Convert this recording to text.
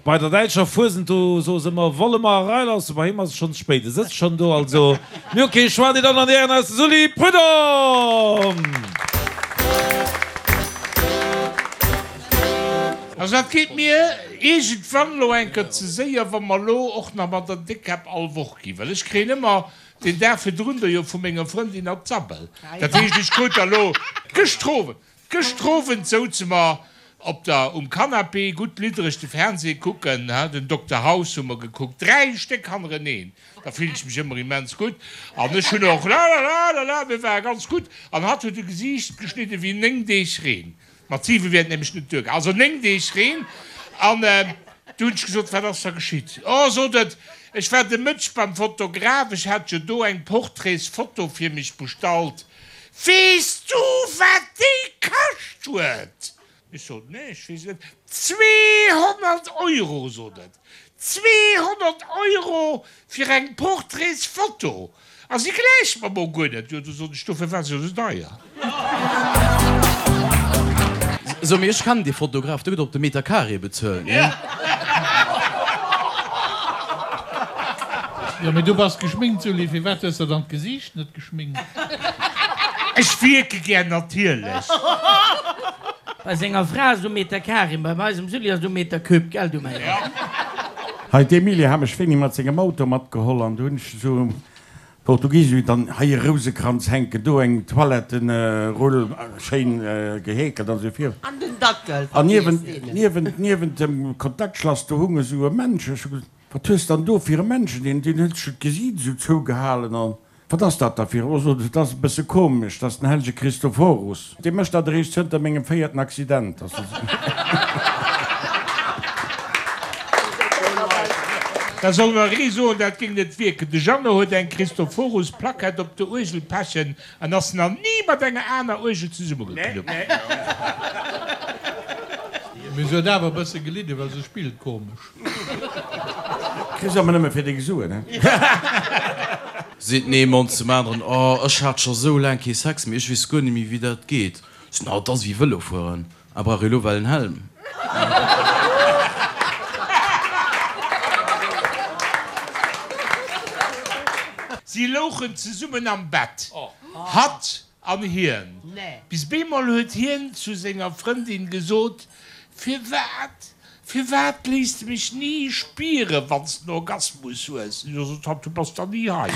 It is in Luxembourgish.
Bei der däitscher Fuesent, do soe se ëmmer, Wolle mer erailassen? Bei him ass et schonn ze spéit, e sëtzt schonn do. Also, mir hu kee Choix, Dir Dammen an Dir Hären, eis de Sully Prudhomme! Also dat geet mir iergendwann elo eng Kéier ze séier, wa mer elo och nach mat der Déckkäpp all Woch ginn, well ech kréien ëmmer den Dag virdrun do jo vu menger Frëndin an d'Sabbel. Dat heescht, ech krut da elo gëschter Owend, gëschter Owend souze mer op der, um Canapé, gutt liddereg de Fernseh kucken, he, den Dokter House hu mer gekuckt, 3 Stéck hannereneen, da fillen ech mech ëmmer immens gutt an ech hunn och la-la-la-la-la, mir ware ganz gutt an hatt huet e Gesiicht geschnidde wéi 9 Deeg Reen. Mat 7 wier et nämlech net duergaangen. Also 9 Deeg Reen. An du hunn ech gesot, Wat ass da geschitt? Oh, sot et, ech war de Mëtteg beim Fotograf, ech hat jo do eng Portraitsfoto fir mech bestallt. Weess du, wat déi kascht huet? Ech sot, Nee, ech weess et net. 200 Euro, sot et. 200 Euro fir eng Portraitsfoto! A si gläicht mer mol guer net. Jo, du sot ech, dofir war se jo sou deier. So, mee ech kennen dee Fotograf, dee gëtt op de Meter carré bezuelt, nee? Jo, mee du bass geschminkt, Sully, firwat hues de dann d'Gesiicht net geschminkt? Ech wierke gär natierlech. Bei senger Fra ass et um Meter carré, bei eisem Sully ass et um Meter cube, gell du mäi Gott. Hei, d'Emilie hat mech wéini mat sengem Auto matgeholl an du hunn ech esou Portugiesesch dann hei e Rousekranz hänken, do eng Toilettenrull schéin geheekelt an esou vir. An den Dackel, An niewent, niewent, niewent dem Kontaktschlass do hung esou e Männchen. Ech hu gesot, Wat hues dann do fir e Männchen? Deen, deen huet sech d'Gesiit esou zougehalen an. Wat ass dat da fir? Oh, sot et, dat ass e bësse komesch, dat ass den hellege Christophorus. Dee mécht dat eréischt zënter mengem véierten Accident. Da soll nach ee soen, dat géing net wierken. De Jeannot huet eng Christophorus-Plackett op der Uergel pechen an ass nach ni mat enger aner Uergel zesummegeknuppt. Mee se huet awer e bësse gelidden, well se spillt komesch. Kriss awer nëmme fir deng Suen, he? Seet den ee Mann zum aneren, Oh, ech hat scho sou laang kee Sex méi, ech weess guer net méi, wéi dat geet. Seet en, Oh, 't ass wéi Vëlo fueren, a brauch ee lo well en Helm? Si louchen zesummen am Bett, hatt an hien. Bis bemol huet hien zu senger Frëndin gesot, Firwat, firwat léiss de mech ni spieren, wann s de en Orgasmus hues? Jo, sot hatt, du bass da ni hei.